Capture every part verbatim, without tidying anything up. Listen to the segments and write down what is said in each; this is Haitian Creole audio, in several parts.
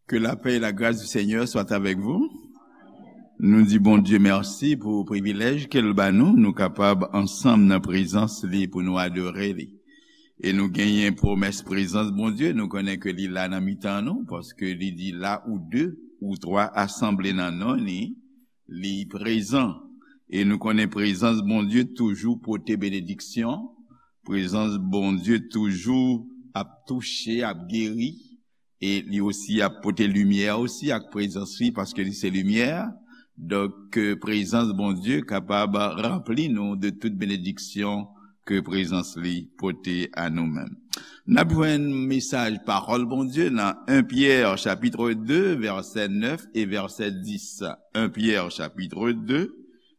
Que la paix et la grâce du Seigneur soient avec vous. Nou di Bondye mèsi pou privilèj ke l ba nou, nou kapab ansanm nan prezans li pou nou adore li. E nou genyen pwomès prezans Bondye, nou konnen ke li la nan mitan nou, paske li di la ou de ou twa asanble nan non li, li prezan. E nou konnen prezans Bondye toujou pote benediksyon, prezans Bondye toujou ap touche, ap geri, e li osi ap pote limyè osi ak prezans li, paske li se limyè. Donk, ke prezans Bondye kapab ranpli nou de tout benediksyon ke prezans li pote a nou menm. N ap jwenn mesaj pawòl Bondye nan en Pyè chapit de, vèsè nèf e vèsè dis. En Pyè chapit de,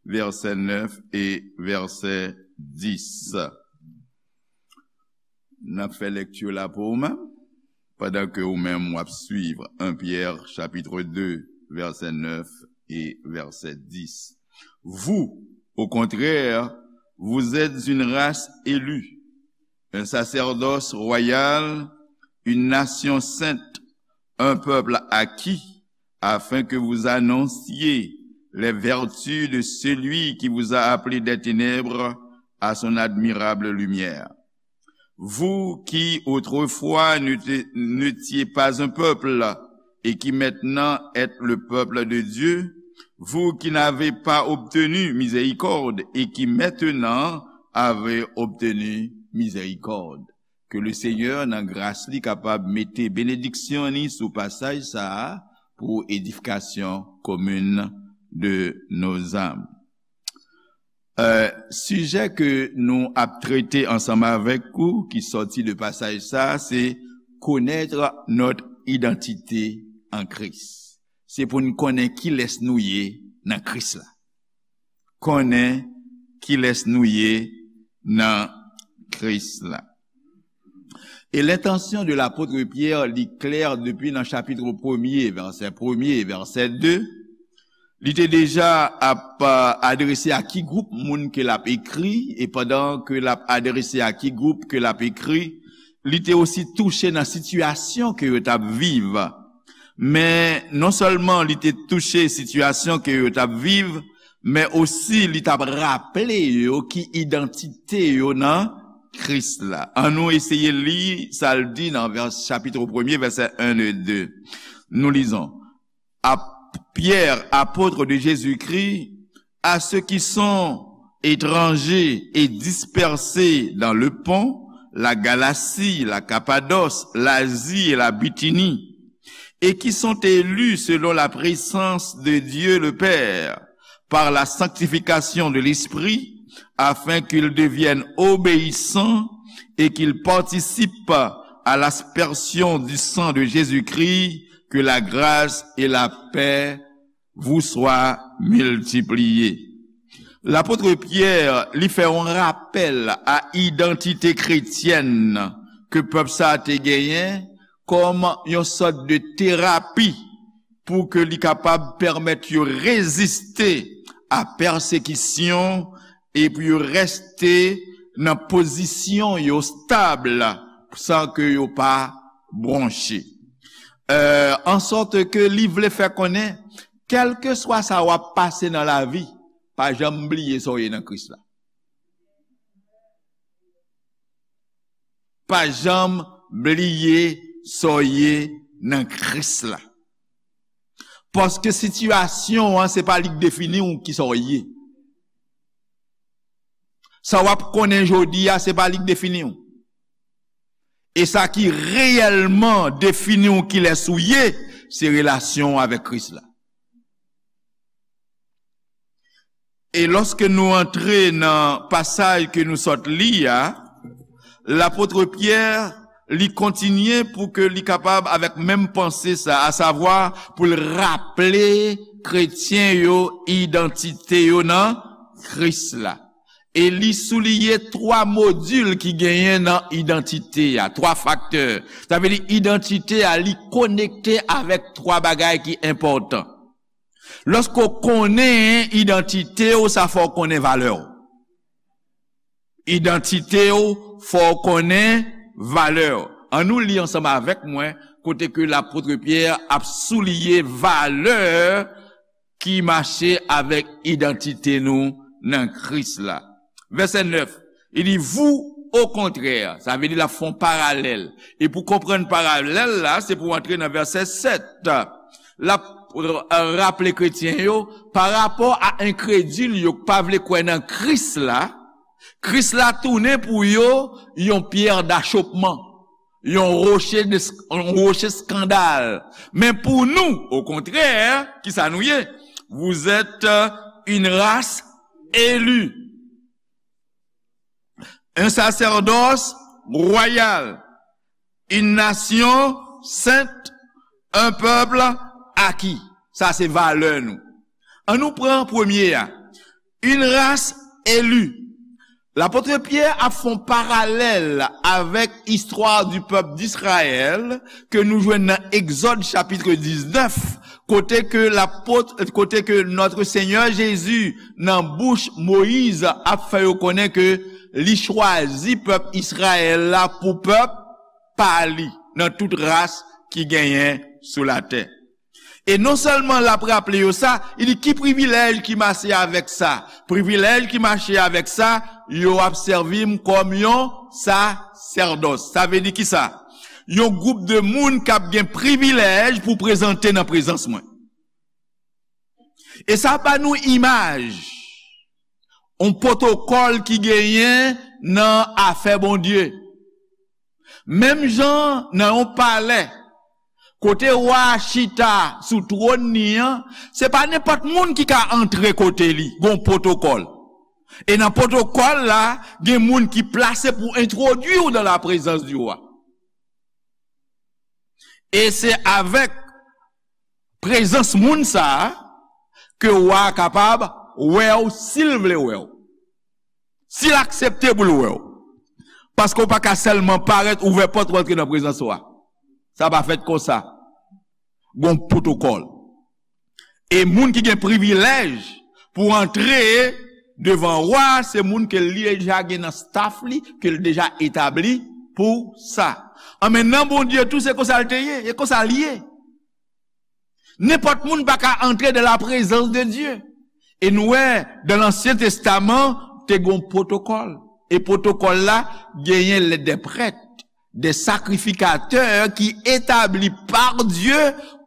vèsè nèf e vèsè dis. N ap fè lekti la pou ou menm, pandan ke ou menm w ap swiv en Pyè chapit de, vèsè nèf e vèsè dis. Vous, au contraire, vous êtes une race élue, un sacerdoce royal, une nation sainte, un peuple acquis, afin que vous annonciez les vertus de celui qui vous a appelé des ténèbres à son admirable lumière. Vous qui autrefois n'étiez pas un peuple et qui maintenant êtes le peuple de Dieu, vous qui n'avez pas obtenu miséricorde et qui maintenant avez obtenu miséricorde. Ke le Senyè nan gras li kapab mete benediksyon li sou pasaj sa a pou edifikasyon komin de nos âmes. Euh, sijè ke nou ap trete ansanm avèk ou ki sòti de pasaj sa a, se connaître notre identité en Christ. Se pou n konnen kilès nou ye nan Kris la. Konnen kilès nou ye nan Kris la. E lentansyon de lapot Pyè, li klè depi nan chapit premye, vèsè premye, vèsè de. Li te deja ap adrese a ki gwoup moun ke l ap ekri, e pandan ke l ap adrese a ki gwoup ke l ap ekri, li te osi touche nan sitiyasyon ke yo t ap viv. Men non sèlman li te touche sitiyasyon ke yo t ap viv, men osi li t ap raple yo ki idantite yo nan Kris la. Annou eseye li sa l di nan vè-, chapit premye, vèsè en e de. Nous lisons. À Pierre, apôtre de Jésus-Christ, à ceux qui sont étrangers et dispersés dans le Pont, la Galatie, la Cappadoce, l'Asie et la Bithynie, et qui sont élus selon la présence de Dieu le Père, par la sanctification de l'Esprit, afin qu'ils deviennent obéissants et qu'ils participent à l'aspersion du sang de Jésus-Christ, que la grâce et la paix vous soient multipliées. Lapot Pyè, li fè yon rapèl a idantite kretyèn ke pèp sa a te genyen kòm yon sòt de terapi pou ke li kapab pèmèt yo reziste a pèsekisyon e pou yo reste nan pozisyon yo stab san ke yo pa bwonche. Euh, an sòt ke li vle fè konnen, kèlkeswa sa w ap pase nan lavi, pa janm bliye sa w ye nan Kris la. Pa janm bliye sa w ye nan Kris la. Paske sitiyasyon an, se pa li k defini w kisa w ye. Sa w ap konnen jodi a, se pa li k defini w. E sa ki reyèlman defini w kilès ou ye, se relasyon w avèk Kris la. E lòske nou antre nan pasaj ke nou sòt li a, lapot Pyè, li kontinye pou ke li kapab avèk menm panse sa, asavwa pou l raple kretyen yo idantite yo nan Kris la. E li souliye twa modil ki genyen nan idantite a, twa faktè. Sa vle di idantite a, li konekte avèk twa bagay ki enpòtan. Lòske w konnen idantite w, sa fè w konnen valè w. Idantite w, fè w konnen valè w. Ann nou li ansanm avèk mwen, kote ke lapot Pyè ap souliye valè ki mache avèk idantite nou nan Kris la. Vèsè nèf, li di, vous, au contraire, sa vle di l ap fè yon paralèl. E pou konprann paralèl la, se pou antre nan vèsè sèt. L ap, euh, raple kretyen yo, pa rapò a enkredil yo k pa vle kwè nan Kris la, Kris la tounen pou yo yon pyè dachopman, yon woche de, yon woche eskandal. Men pou nou, okontrè, kisa nou ye? Vous êtes, euh, une race élue, un sacerdoce royal, une nation sainte, un peuple acquis. Sa se valè nou. Ann nou pran premye a. Une race élue. Lapot Pyè ap fè yon paralèl avèk istwa du peuple d'Israël ke nou jwenn nan Egzòd chapit diznèf, kote ke lapot, kote ke Notre Seigneur Jésus, nan bouch Moyiz, ap fè yo konnen ke li chwazi pèp Izrayèl la pou pèp pa li, nan tout ras ki genyen sou latè. E non sèlman l ap raple yo sa, li di, ki privilèj ki mache avèk sa? Privilèj ki mache avèk sa, yo ap sèvi m kòm yon sasèdòs. Sa vle di kisa? Yon gwoup de moun k ap gen privilèj pou prezante nan prezans mwen. E sa ba nou imaj yon pwotokòl ki genyen nan afè Bondye. Menm jan nan yon palè, kote wa a chita sou twòn li an, se pa nenpòt moun ki ka antre kote li, gon pwotokòl. E nan pwotokòl la, gen moun ki plase pou entwodui w dans la présence du roi. E se avèk prezans moun sa a ke wa a kapab wè w si l vle wè w. Si l aksepte pou l wè w. Paske w pa ka sèlman parèt, ouvè pòt, w antre nan prezans wa. Sa pa fèt konsa. Gon pwotokòl. E moun ki gen privilèj pou antre devan wa a, se moun ke li deja gen nan staff li, ke l deja etabli pou sa. An men nan Bondye tou, se konsa l te ye, e konsa l ye. Nenpòt moun pa ka antre dans la présence de Dieu. E nou wè, dans l'Ancien Testament, te gen yon pwotokòl. E pwotokòl la, genyen les, des prêtres, des sacrificateurs ki etabli pa Dye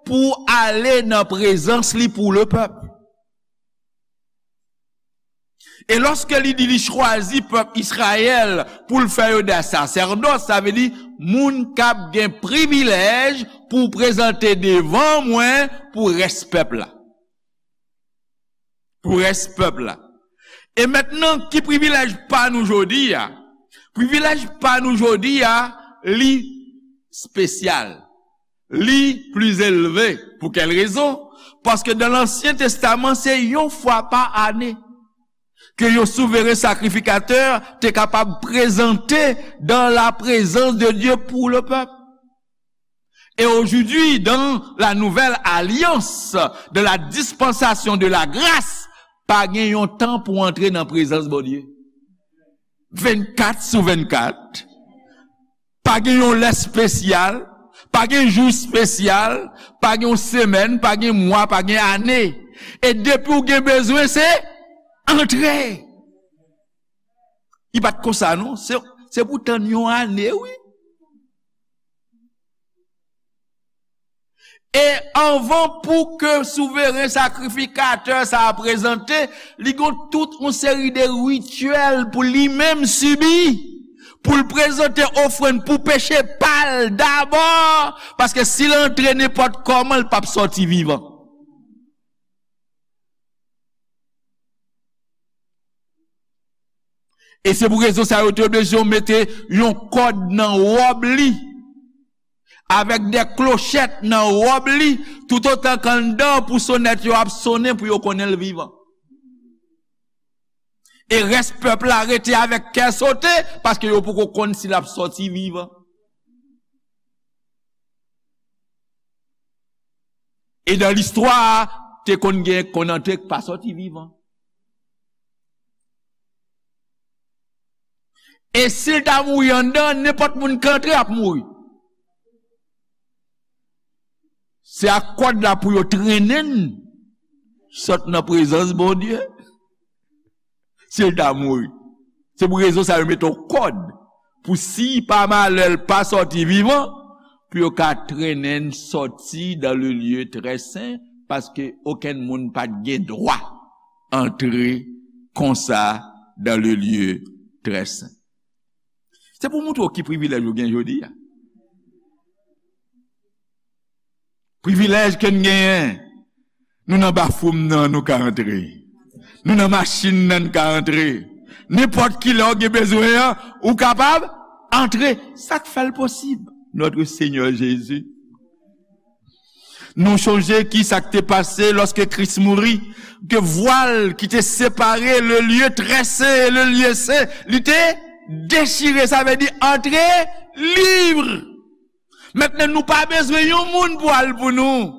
pou ale nan prezans li pou le pèp. E lòske li di li chwazi pèp Izrayèl pou l fè yo de sasèdòs, sa vle di moun k ap gen privilèj pou prezante devan mwen pou rès pèp la. Pou rès pèp la. E mentnan, ki privilèj pa nou jodi a? Privilèj pa nou jodi a, li espesyal. Li pli elve. Pou kèl rezon? Paske dans l'Ancien Testament, se yon fwa pa ane ke yon souveren sakrifikatè te kapab prezante dans la présence de Dieu pour le peuple. Et aujourd'hui, dans la nouvelle alliance, dans la dispensation de la grâce, pa gen yon tan pou antre nan prezans Bondye. Vennkat sou vennkat. Pa gen yon lè espesyal, pa gen jou espesyal, pa gen yon semèn, pa gen mwa, pa gen ane. E depi w gen bezwen, se antre. Li pa t konsa non, se, se pou tann yon ane, wi. E anvan pou ke souveren sakrifikatè sa a prezante, li gon tout yon seri de rityèl pou li menm sibi, pou l prezante ofrann pou peche pa l dabò, paske si l antre nenpòt kòman, l p ap sòti vivan. E se pou rezon sa yo te oblije mete yon kòd nan wòb li, avèk de klochèt nan wòb li, toutotan k anndan pou sonèt yo ap sonnen pou yo konnen l vivan. E rès pèp la rete avèk kè sote, paske yo poko konn si l ap sòti vivan. E dan listwa, te konn gen konn antre k pa sòti vivan. E si l ta mouri anndan, nenpòt moun k antre ap mouri. Se ak kòd la pou yo trennen n sot nan prezans Bondye. Si l ta mouri. Se pou rezon sa yo mete yon kòd pou si pa malè l pa sòti vivan, pou yo ka trennen n sòti dans le lieu très saint, paske okenn moun pa t gen dwa antre konsa dans le lieu très saint. Se pou montre w ki privilèj ou gen jodi a. Privilèj ke n genyen. Nou nan bafwoum nan, nou ka antre. Nou nan machin nan, n ka antre. Nenpòt ki lè w gen bezwen an, ou kapab antre. Sa k fè l posib? Notre Seigneur Jésus. Nou chonje ki sa k te pase lòske Kris mouri, ke vwal ki te separe le lieu très saint et le lieu saint, li te dechire, sa vle di antre lib. Mentnan, nou pa bezwen yon moun pou al pou nou.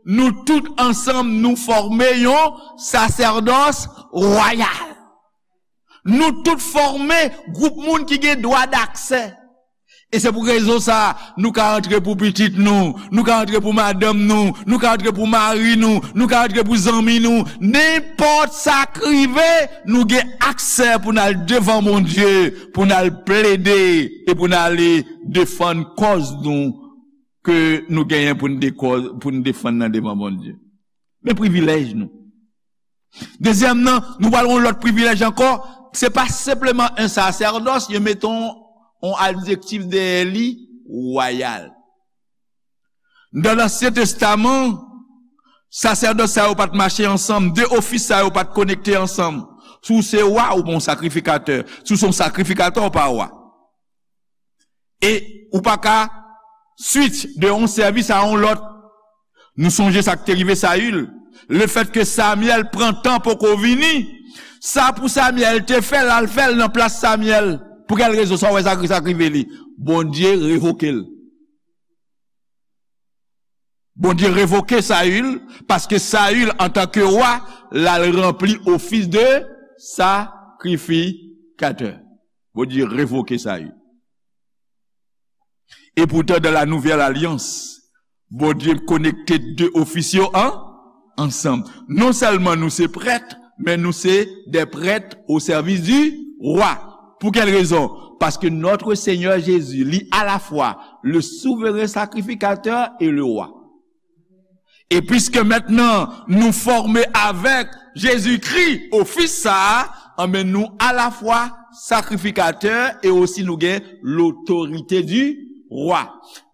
Nou tout ansanm, nou fòme yon sasèdòs wayal. Nou tout fòme gwoup moun ki gen dwa daksè. E se pou rezon sa, nou ka antre pou pitit nou, nou ka antre pou madanm nou, nou ka antre pou mari nou, nou ka antre pou zanmi nou. Nenpòt sa k rive, nou gen aksè pou n al devan Bondye, pou n al plede e pou n ale defann kòz nou ke nou genyen pou n dekò-, pou n defann nan devan Bondye. Men privilèj nou. Dezyèm nan, nou pral yon lòt privilèj ankò. Se pa senpleman yon sasèdòs, yo mete yon, yon adjektif dèyè li, wayal. Nan Ansyen Testaman, sasèdòs sa yo pa t mache ansanm, de ofis sa yo pa t konekte ansanm. Si w se wa, ou pa yon sakrifikatè. Si w se yon sakrifikatè, ou pa wa. E ou pa ka switch de yon sèvis a yon lòt. Nou sonje sa k te rive Sayil. Lefètke Samyèl pran tan poko vini, sa pou Samyèl te fè, l al fè l nan plas Samyèl. Pou kèl rezon? Sa w wè sa, sa k rive li? Bondye revoke l. Bondye revoke Sayil, paske Sayil, antanke wa, l al ranpli ofis de sakrifikatè. Bondye revoke Sayil. Epoutan, dans la nouvelle alliance, Bondye konekte de ofis yo an, ansanm. Non sèlman nou se prèt, men nou se des prêtres au service du roi. Pou kèl rezon? Paske notre Seigneur Jésus, li alafwa le souverain sacrificateur et le roi. E piske mentnan nou fòme avèk Jezikri, ofis sa a, anben nou alafwa sakrifikatè e osi nou gen l'autorité du roi.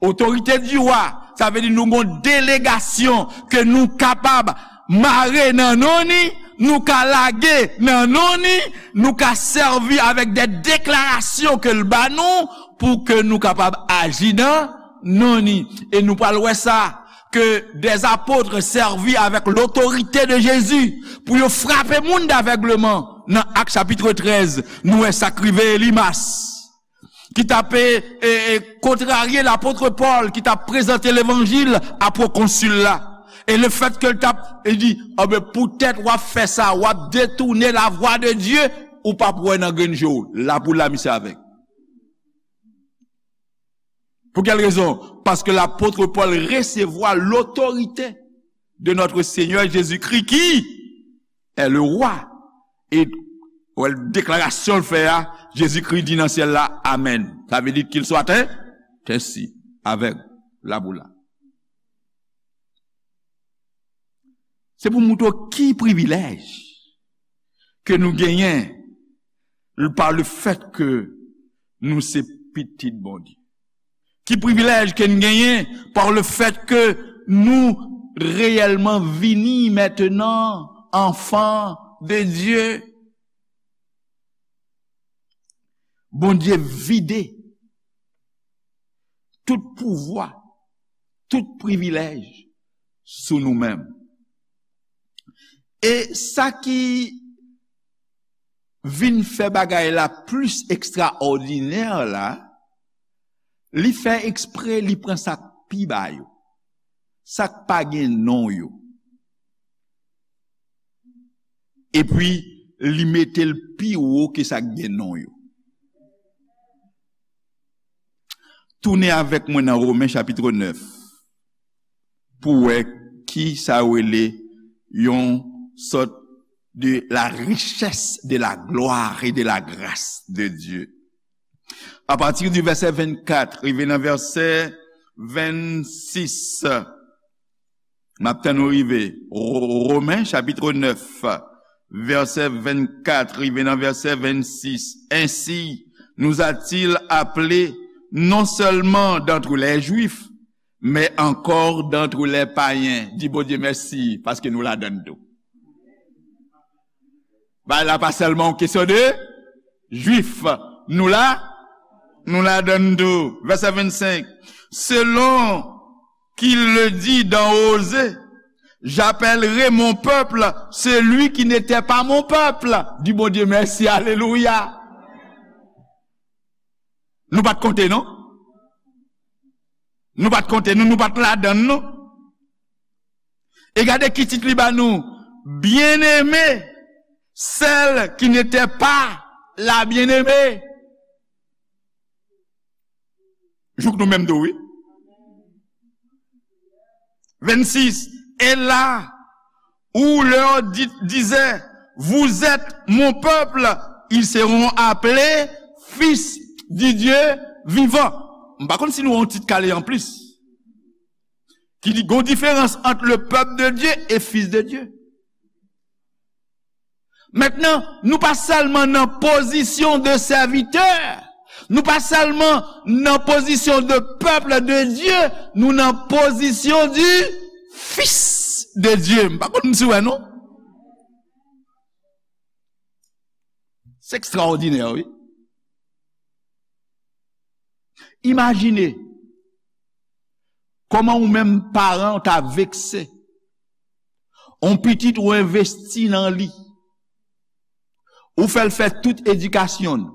Autorité du roi, sa vle di nou gen yon delegasyon ke nou kapab mare nan non ni, nou ka lage nan non ni, nou ka sèvi avèk de deklarasyon ke l ba nou pou ke nou kapab aji nan non ni. E nou pral wè sa, que des apôtres servis avec l'autorité de Jésus pou yo frape moun d'avègleman. Nan Ak chapit trèz, nou wè sa k rive Elimas, ki t ap, e, e, kontrarye lapot Pòl, ki t ap prezante levanjil a pwokonsil la. E lefètke l t ap, e di, anben, poutèt w ap fè sa, w ap detounen lavwa de Dye, ou p ap wè nan grenn je w. Lapoula misye avèg. Pou kèl rezon? Paske lapot Pòl resevwa lotorite de notre Seigneur Jésus-Christ qui est le roi. E, wè, deklarasyon l fè a, Jezikri di nan syèl la, amèn. Sa vle di qu'il soit ainsi, avèg, lapoula. Se pou montre w ki privilèj ke nou genyen pa le fèt ke nou se pitit Bondye. Ki privilèj ke n genyen pa le fèt ke nou reyèlman vini mentnan anfan de Dye. Bondye vide tout pouvwa, tout privilèj sou nou menm. E sa ki vin fè bagay la plis ekstraòdinè la, li fè ekspre, li pran sa k pi ba yo, sa k pa gen non yo. Epi, li mete l pi wo ke sa k gen non yo. Tounen avèk mwen nan Women chapit nèf. pou wè ki sa yo rele yon sòt de la richesse de la gloire et de la grâce de Dieu. A pati di vèsè vennkat rive nan vèsè vennsis, m ap tann nou rive. Ro-, Romen chapit nèf, vèsè vennkat rive nan vèsè vennsis. Ainsi nous a-t-il appelés non seulement d'entre les Juifs, mais encore d'entre les païens. Di Bondye mèsi, paske nou ladann tou. Bagay la pa sèlman yon kesyon de Jwif. Nou la, nou ladann tou. Vèsè vennsenk. Selon qu'il le dit dans Osée, j'appellerai mon peuple celui qui n'était pas mon peuple. Di Bondye mèsi, alelouya. Nou pa t konte, non? Nou pa t konte, nou, nou pa t ladann, non? E gade ki tit li ba nou, Bien-aimée, celle qui n'était pas la bien-aimée. Jouk nou menm tou, wi. Vennsis. Et là où leur di-, disait, vous êtes mon peuple, ils seront appelés fils du Dieu vivant. M pa konn si nou wè yon tit kale anplis. Ki di, gon diferans ant le peuple de Dieu et fils de Dieu. Mentnan, nou pa sèlman nan pozisyon de sèvitè, nou pa sèlman nan pozisyon de peuple de Dieu, nou nan pozisyon du fils de Dieu. M pa konn si w wè, non? Se ekstraòdinè, wi. Imajine kòman ou menm paran ou ta vekse. On pitit ou envesti nan li. Ou fè l fè tout edikasyon l.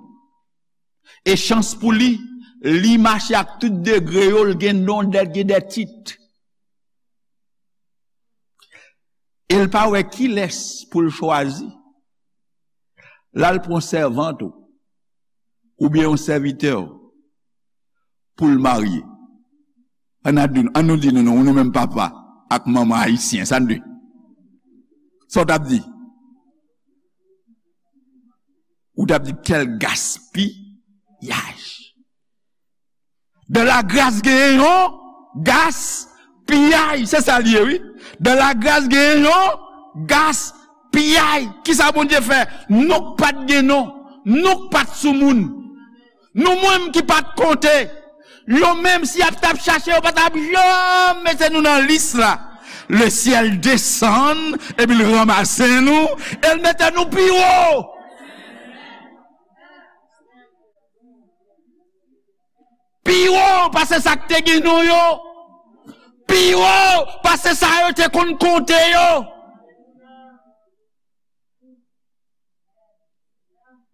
E chans pou li, li mache ak tout degre yo, l gen non, l gen de tit. E l pa wè kilès pou l chwazi. L al pran sèvant ou, oubyen yon sèvitè w pou l marye. Ann a di, ann nou di nou non, nou menm papa ak manman ayisyen, sa n di? Sa w t ap di? Ou t ap di, quel gaspillage. Dan lagras genyen yon gaspiyay. Se sa l ye, wi. Dan lagras genyen yon gaspiyay. Kisa Bondye fè? Nou k pa t gen non. Nou k pa t sou moun. Nou menm ki pa t konte. Yo menm, si y ap t ap chache, yo pa t ap janm mete nou nan lis la. Le syèl desann, epi l ranmase nou, e l mete nou pi wo. Pi wo pase sa k te gen non yo. Pi wo pase sa yo te konn konte yo.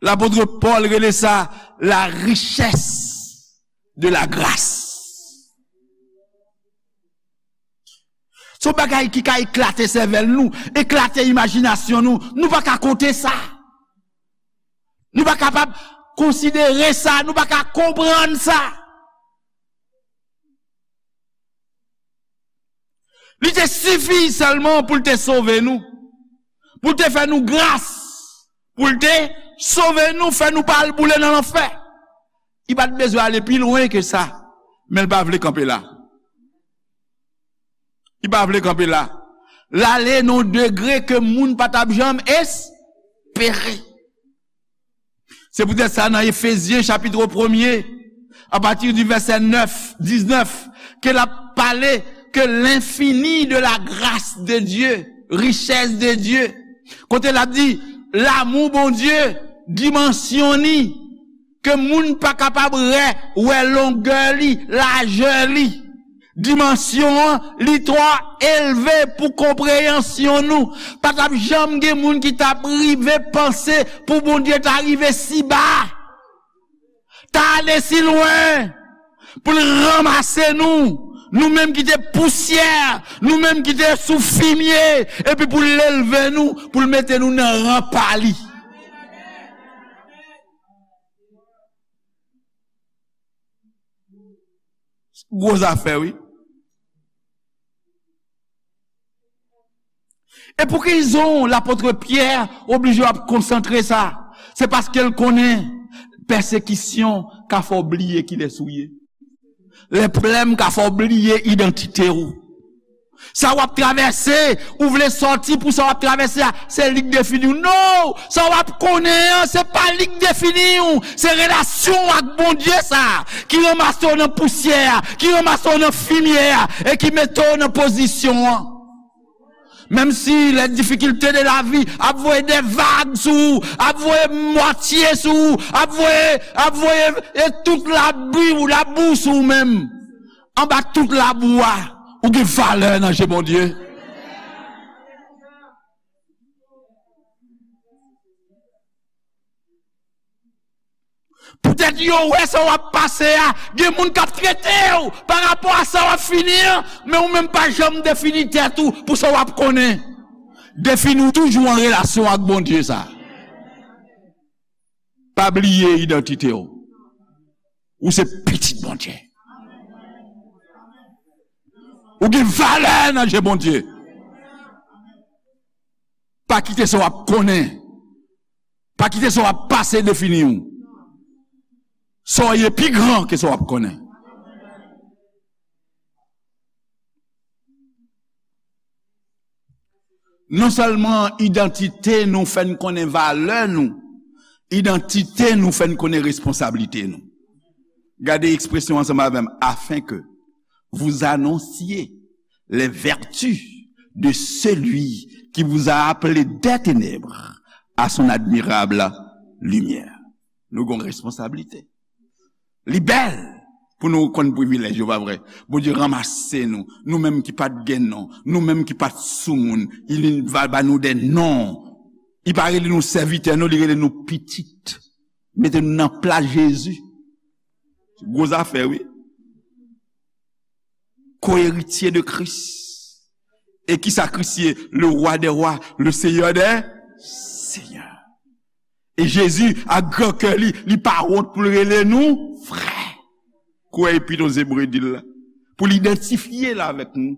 Lapot Pòl rele sa la richès de la gras. Se yon bagay ki ka eklate sèvèl nou, eklate imajinasyon nou. Nou pa ka konte sa. Nou pa kapab konsidere sa, nou pa ka konprann sa. Li te sifi sèlman pou l te sove nou, pou l te fè nou gras, pou l te sove nou, fè nou pa al boule nan lanfè. Li pa t bezwen ale pi lwen ke sa, men l pa vle kanpe la. Li pa vle kanpe la. L ale nan yon degre ke moun pa t ap janm espere. Se poutèt sa, nan Efezyen chapit premye, apati di vèsè nèf, diznèf, ke l ap pale ke l'infini de la grâce de Dieu, richès de Dye, kote l ap di, lanmou Bondye, dimansyon ni, ke moun pa kapab wè, wè longè li, lajè li. Dimansyon an, li twò elve pou konpreyansyon nou. Pa t ap janm gen moun ki t ap rive panse pou Bondye ta rive si ba, ta ale si lwen, pou l ranmase nou, nou menm ki te pousyè, nou menm ki te sou fimye, epi pou l elve nou, pou l mete nou nan ran pa li. Gwo zafè, wi. E pou ki rezon lapot Pyè oblije ap konsantre sa? Se paske l konnen pèsekisyon ka fè w bliye kilès ou ye. Lè pwoblèm ka fè w bliye idantite w. Sa w ap travèse, ou vle sòti pou sa w ap travèse a, se li k defini w. Non! Sa w ap konnen an, se pa li k defini w. Se relasyon w ak Bondye sa a, ki ranmase w nan pousyè a, ki ranmase w nan fimyè a, e ki mete w nan pozisyon an. Menm si les difficultés de la vie ap voye de vag sou ou, ap voye mwatye sou ou, ap voye, ap voye, e tout labi, labou sou ou menm. Anba tout labou a, ou gen valè nan je Bondye. Poutèt yo wè sa w ap pase a, gen moun k ap trete w pa rapò a sa w ap fini an, men ou menm pa janm defini tèt ou pou sa w ap konnen. Defini w toujou an relasyon ak Bondye sa. Pa bliye idantite w. Ou se pitit Bondye. Ou gen valè nan je Bondye. Pa kite sa w ap konnen. Pa kite sa w ap pase defini w. Sa w ye pi gran ke sa w ap konnen. Non sèlman idantite nou fè n konnen valè nou, idantite nou fè n konnen responsablite nou. Gade ekspresyon ansanm avè m, afin que vous annonciez les vertus de celui qui vous a appelé des ténèbres à son admirable lumière. Nou gen responsablite. Li bèl pou nou konn privilèj yo, pa vre? Bondye ranmase nou, nou menm ki pa t gen non, nou menm ki pa t soumoun, li va ba nou de non. Li pa rele nou sèvitè, non, li rele nou pitit. Mete nou nan plas Jezi. Gwo zafè, wi. Koeritye de Kris. E ki sa Kris ye? Le roi des rois, le seigneur des seigneurs. E Jezi, ak gran kè li, li pa wont pou l rele nou frè. Kwè epi nou Ebre di l la. Pou l idantifye l avèk nou.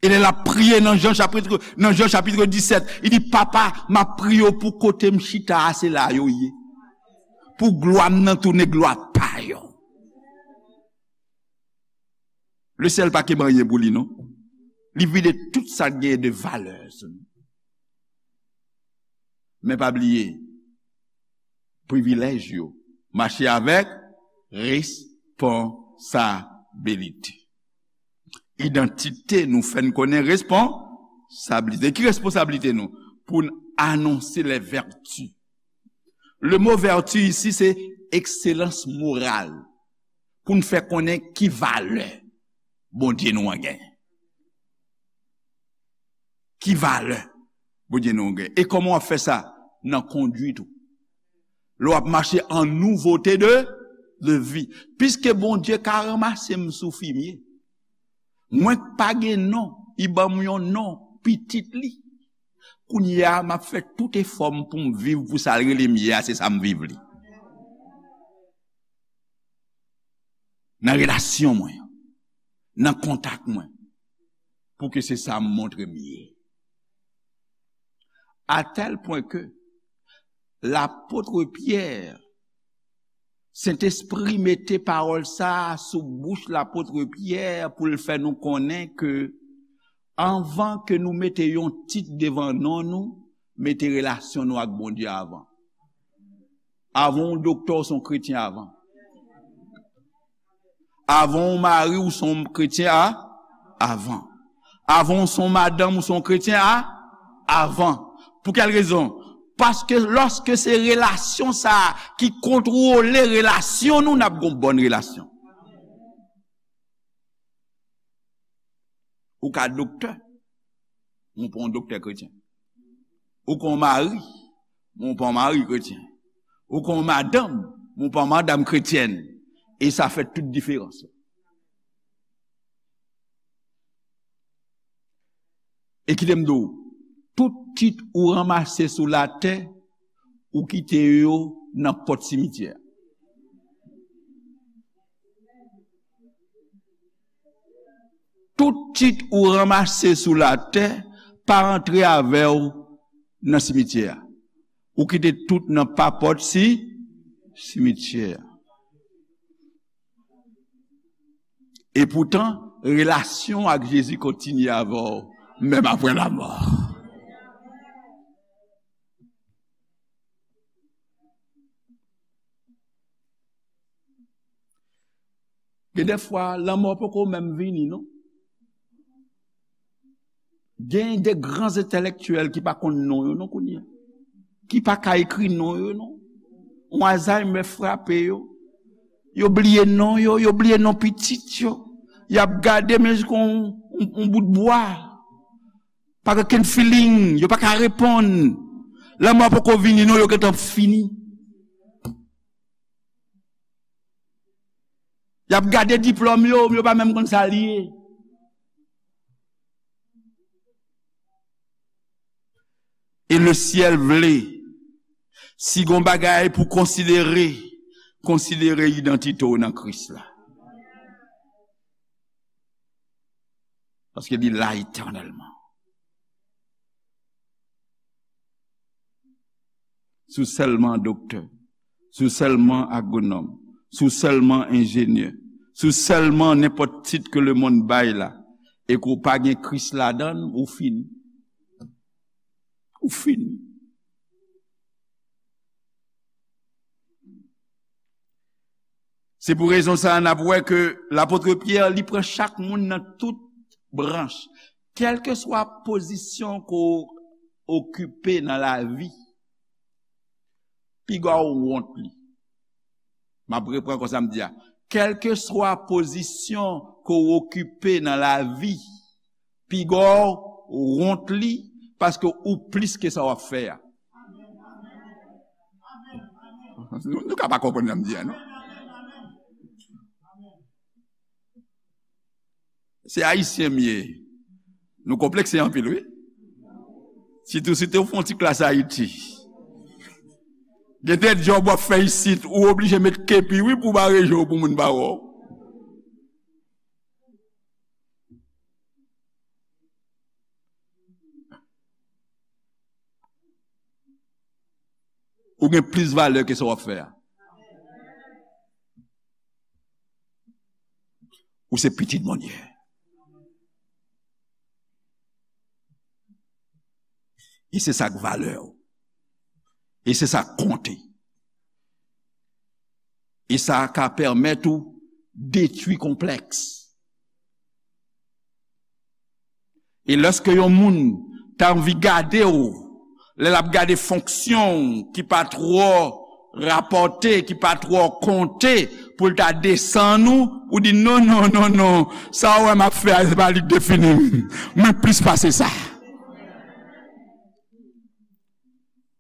E lè l ap priye nan Jan chapit, nan Jan chapit disèt, li di, Papa, m ap priye w pou kote m chita a, se la yo ye. Pou glwa m nan tounen glwa pa yo. Lesyèl pa kenbe anyen pou li, non. Li vide tout sa k genyen de valè sou nou. Men pa bliye, privilèj yo mache avèk responsabilite. Idantite nou fè n konnen responsablite. Ki responsablite nou? Pou n anonse les vertus. Le mot vertu isi, se ekselans moral. Pou n fè konnen ki valè Bondye nou an genyen. Ki valè Bondye nou an genyen. E kòman w ap fè sa? Nan konduit ou. Lè w ap mache an nouvote de, de vi. Piske Bondye ka ranmase m sou fimye. Mwen k pa gen non, li ban m yon non, pitit li. Kounye a, m ap fè tout efò m pou m viv pou sa l rele m ye a, se sa m viv li. Nan relasyon mwen, nan kontak mwen, pou ke se sa m montre m ye. A tèl pwen ke lapot Pyè, Sentespri mete pawòl sa a sou bouch lapot Pyè pou l fè nou konnen ke anvan ke nou mete yon tit devan non nou, mete relasyon nou ak Bondye avan. Avan w doktè, w se yon kretyen avan. Avan w mari, w se yon kretyen a, avan. Avan w se yon madanm, w se yon kretyen a, avan. Pou kèl rezon? Paske lòske se relasyon sa a ki kontwole relasyon nou, n ap gen yon bòn relasyon. Ou ka doktè, men w pa yon doktè kretyen. Ou ka yon mari, men w pa yon mari kretyen. Ou ka yon madanm, men w pa yon madanm kretyèn. E sa fè tout diferans la. E kite m di w, tout tit ou ranmase sou latè, ou kite yo nan pòt simityè. Tout tit ou ranmase sou latè, pa antre avè w nan simityè a. Ou kite tout nan papòt si simityè a. E poutan, relasyon ak Jezi kontinye avè w, menm apre lanmò. Gen de fwa, lanmò poko menm vini, non. Gen de gran entèlektyèl ki pa konn non yo, non, kounye a. Ki pa ka ekri non yo, non. Yon Alzheimer frape yo. Yo bliye non yo, yo bliye non pitit yo. Y ap gade, men, kon yon, yon, yon bout bwa. Pa gen okenn feeling, yo pa ka reponn. Lanmò poko vini, non, yo gentan fini. Y ap gade diplòm yo, yo pa menm konn sa l ye. E lesyèl vle, si gon bagay pou konsidere, konsidere idantite w nan Kris la. Paske li la etènèlman. Si w sèlman doktè, si w sèlman agwonòm, si w sèlman enjenyè, si w sèlman nenpòt tit ke lemonn bay la, e ke w pa gen Kris ladan l, ou fini. Ou fini. Se pou rezon sa a n ap wè ke lapot Pyè, li pran chak moun nan tout branch. Kèlkeswa pozisyon ke w okipe nan lavi, piga w wont li. M ap repran konsa m di a. Kèlkeswa pozisyon ke w okipe nan lavi, piga w wont li, paske ou plis ke sa w ap fè a. Nou, nou ka pa konprann sa m di a, non? Se Ayisyen m ye. Nou konplekse anpil, wi. Sitou, sitou w fè yon ti klas Ayiti. Gen de djòb w ap fè isit, ou oblije met kepi, wi, pou w bare je w pou moun pa wè w. Ou gen plis valè ke sa w ap fè a. Ou se pitit Bondye. E se sa k valè w. E se sa k konte. E sa ka pèmèt ou detwi konplèks. E lèske yon moun ta anvi gade w, lè l ap gade fonksyon w ki pa twò rapòte, ki pa twò konte, pou l ta desann ou, ou di, "Non, non, non, non, sa w wè m ap fè a, se pa li k defini m. Mwen plis pase sa.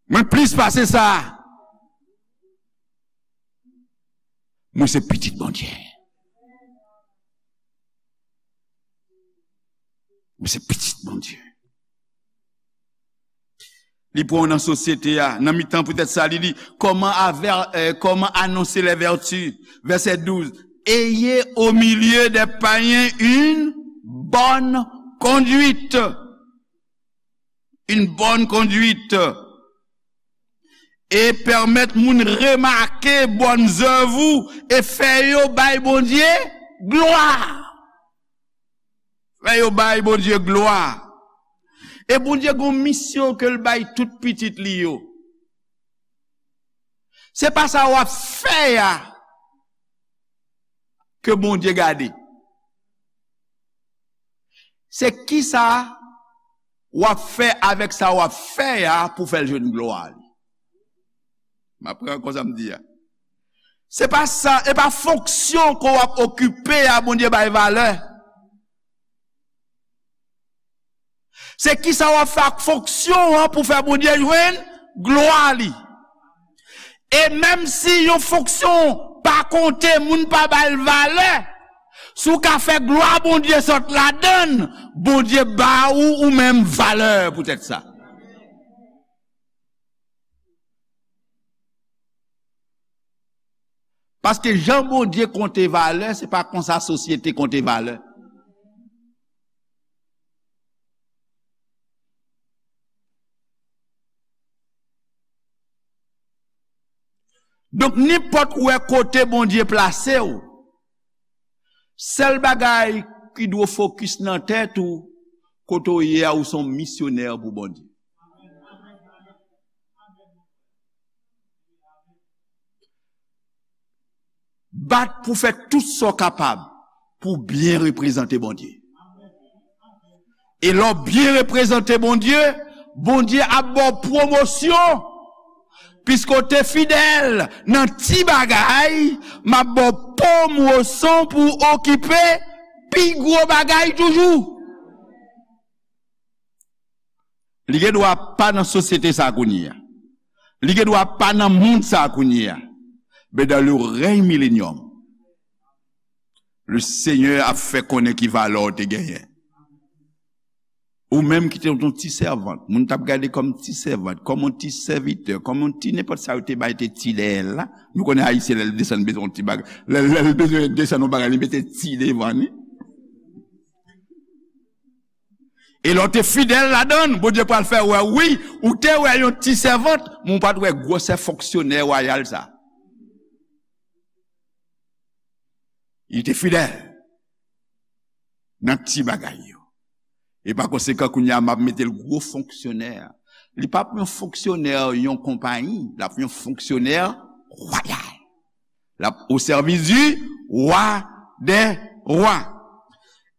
Mwen plis pase sa." Mwen se pitit Bondye. Mwen se pitit Bondye. Li pran w nan sosyete a, nan mitan poutèt sa, li di, comment aver-, euh, comment annoncer les vertus? Verset douze. Ayez au milieu des païens une bonne conduite. Une bonne conduite. E pèmèt moun remake bòn zèv ou e fè yo bay Bondye glwa. Fè yo bay Bondye glwa. E Bondye gon misyon ke l bay tout pitit li yo. Se pa sa w ap fè a ke Bondye gade. Se kisa w ap fè avèk sa w ap fè a pou fè l jwenn glwa li. M ap pran konsa m di a. Se pa sa, e pa fonksyon ke w ap okipe a Bondye bay valè. Se kisa w ap fè ak fonksyon an pou fè Bondye jwenn glwa li. E menm si yon fonksyon pa konte, moun pa ba l valè, si w ka fè glwa Bondye sot ladan l, Bondye ba ou ou menm valè poutèt sa. Paske jan Bondye konte valè, se pa konsa sosyete konte valè. Donk, nenpòt ou wè kote Bondye plase w, sèl bagay ki dwe w fokis nan tèt ou, kote w ye a, ou se yon misyonè pou Bondye. Bat pou fè tout sa w kapab pou w byen reprezante Bondye. E lè w byen reprezante Bondye, Bondye ap ba w pwomosyon. Piske w te fidèl nan ti bagay, m ap ba w pwomosyon pou w okipe pi gwo bagay toujou. Li gen dwa pa nan sosyete sa a kounye a. Li gen dwa pa nan mond sa a kounye a. Men dans le règne millénium, le Seigneur ap fè konnen ki valè w te genyen. Ou menm ki te yon ti sèvant, moun t ap gade kòm ti sèvant, kòm yon ti sèvitè, kòm yon ti nenpòt sa yo te bay te ti dèyè l la. Nou konnen Ayisyen lè l desann bezwen yon ti bagay. Lè, lè l bezwen desann yon bagay, li mete ti devan li. E lè w te fidèl ladan l, Bondye pral fè wè, wi, ou te wè yon ti sèvant, men ou pa t wè gwosè fonksyonè wayal sa. Li te fidèl nan ti bagay yo. E pa konsekan, kounye a, m ap mete l gwo fonksyonè. Li p ap yon fonksyonè yon konpayi, l ap yon fonksyonè wayal. L ap au service du roi des rois.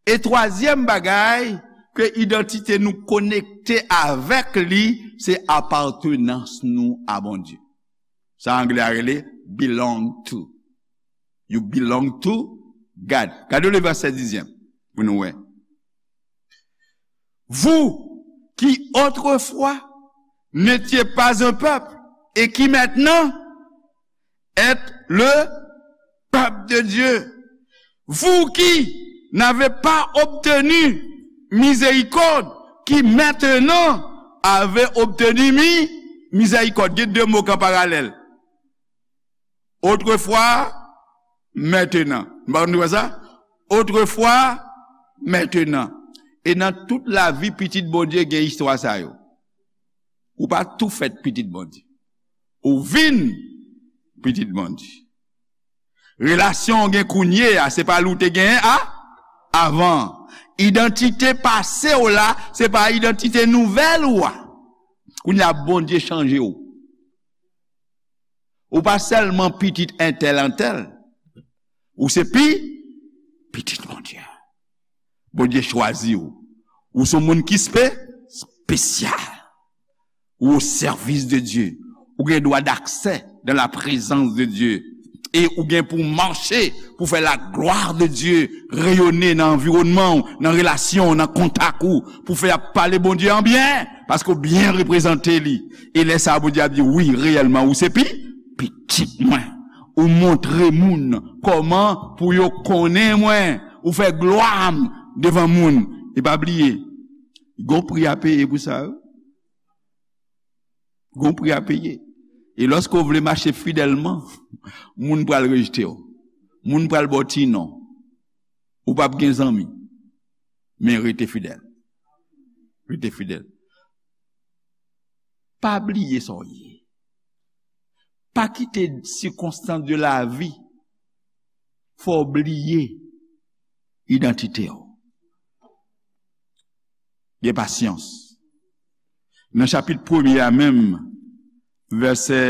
E twazyèm bagay, ke idantite nou konekte avèk li, se apatenans nou a Bondye. Sa anglè a rele belong to. You belong to God. Gade le vèsè dizyèm pou nou wè. Vous qui autrefois n'étiez pas un peuple et qui maintenant êtes le peuple de Dieu. Vous qui n'avez pas obtenu miséricorde, qui maintenant avez obtenu mi-, miséricorde. Gen de mo ki an paralèl. Autrefois, maintenant. M pa konn nou wè sa? Autrefois, maintenant. E nan tout lavi pitit Bondye gen istwa sa yo. Ou pa tou fèt pitit Bondye. Ou vin pitit Bondye. Relasyon w gen kounye a, se pa li w te genyen a, avan. Idantite pase w la, se pa idantite nouvèl ou a. Kounye a, Bondye chanje w. Ou pa sèlman pitit entèl antèl. Ou se pi, pitit Bondye. Bondye chwazi w. Ou se yon moun ki spe-, espesyal. Ou au service de Dieu. Ou gen dwa d'accès dans la présence de Dieu. E ou gen pou mache, pou fè la gloire de Dieu reyonnen nan anviwònman w, nan relasyon w, nan kontak ou, pou fè y ap pale Bondye an byen, paske w byen reprezante li. E lè sa a, Bondye ap di, wi, reyèlman, ou se pi-, pitit mwen. Ou montre moun kòman pou yo konnen mwen. Ou fè glwa m devan moun. E pa bliye, gon pri a peye pou sa, wi. Gon pri a peye. E lòske w vle mache fidèlman, moun pral rejte w. Moun pral ba w ti non. Ou p ap gen zanmi. Men rete fidèl. Rete fidèl. Pa bliye sa w ye. Pa kite sikonstans de lavi fè w bliye idantite w. Gen pasyans. Nan chapit premye a menm, vèsè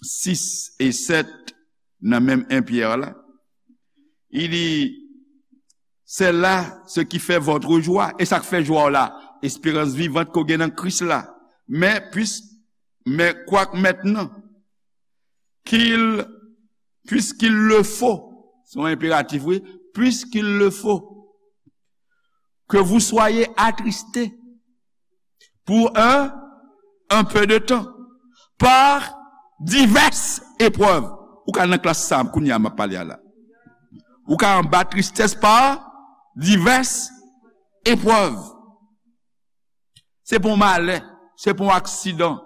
sis e sèt, nan menm en Pyè la, il dit, c'est là ce qui fait votre joie. E sa k fè jwa w la, esperans vivant ke w gen nan Kris la. Men, puis, mais quoique maintenant, qu'il, puisqu'il le faut, se yon enperatif, wi, puisqu'il le faut, que vous soyez attristés pour un, un peu de temps, par diverses épreuves. Ou ka nan klas sa, kounye a m ap pale a la. Ou ka anba tristès pa divès eprèv. Se pa yon malè, se pa yon aksidan.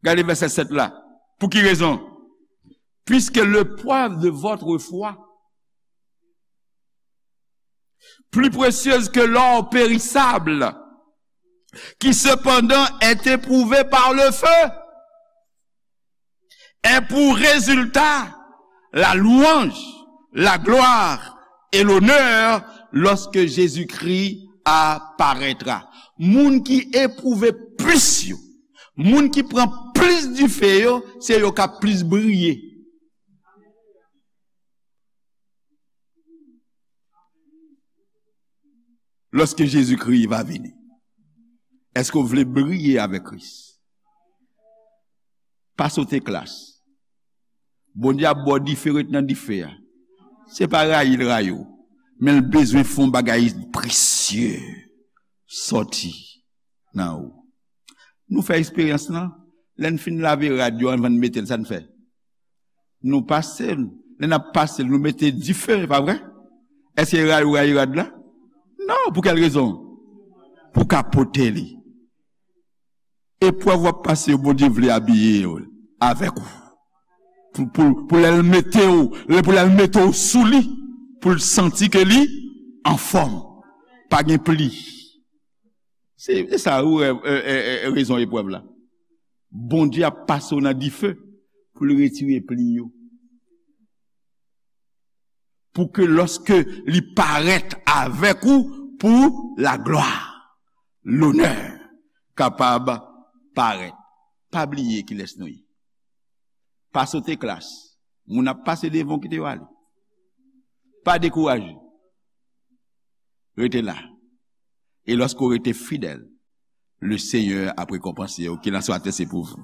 Gade vèsè sèt la. Pou ki rezon? Puisque l'épreuve de votre foi, plus précieuse que l'or périssable, qui cependant est éprouvé par le feu, ait pour résultat la louange, la gloire et l'honneur lorsque Jésus-Christ apparaîtra. Moun ki epwouve plis yo, moun ki pran plis dife yo, se yo k ap plis briye. Lorsque Jésus-Christ va venir, est-ce que vous voulez briller avec Christ? Pa sote klas. Bondye ap ba w dife, ret nan dife a. Se pa rayi l rayi w, men l bezwen fè yon bagay presye sòti nan ou. Nou fè eksperyans lan, lè n fin lave rad yo anvan n mete l, sa n fè? Nou pase l. Lè n ap pase l, nou mete dife, e pa vre? Èske rayi w rayi rad la? Non, pou kèl rezon? Pou ka pote li. Eprèv w ap pase yo, Bondye vle abiye yo avèk ou. Pou, pou, pou lè l mete w, lè, pou lè l mete w sou li, pou l santi ke li anfòm. Pa gen pli. Se, se sa ou, e, e, e, e, rezon eprèv la. Bondye ap pase w nan dife pou l retire pli yo. Pou ke lòske li parèt avèk ou pou laglwa, lonè kapab parèt. Pa bliye kilès nou ye. Pa sote klas. Moun ap pase devan w, kite yo ale. Pa dekouraje. Rete la. E lòske w rete fidèl, le Seigneur ap rekonpanse w. Qu'il en soit ainsi pour vous.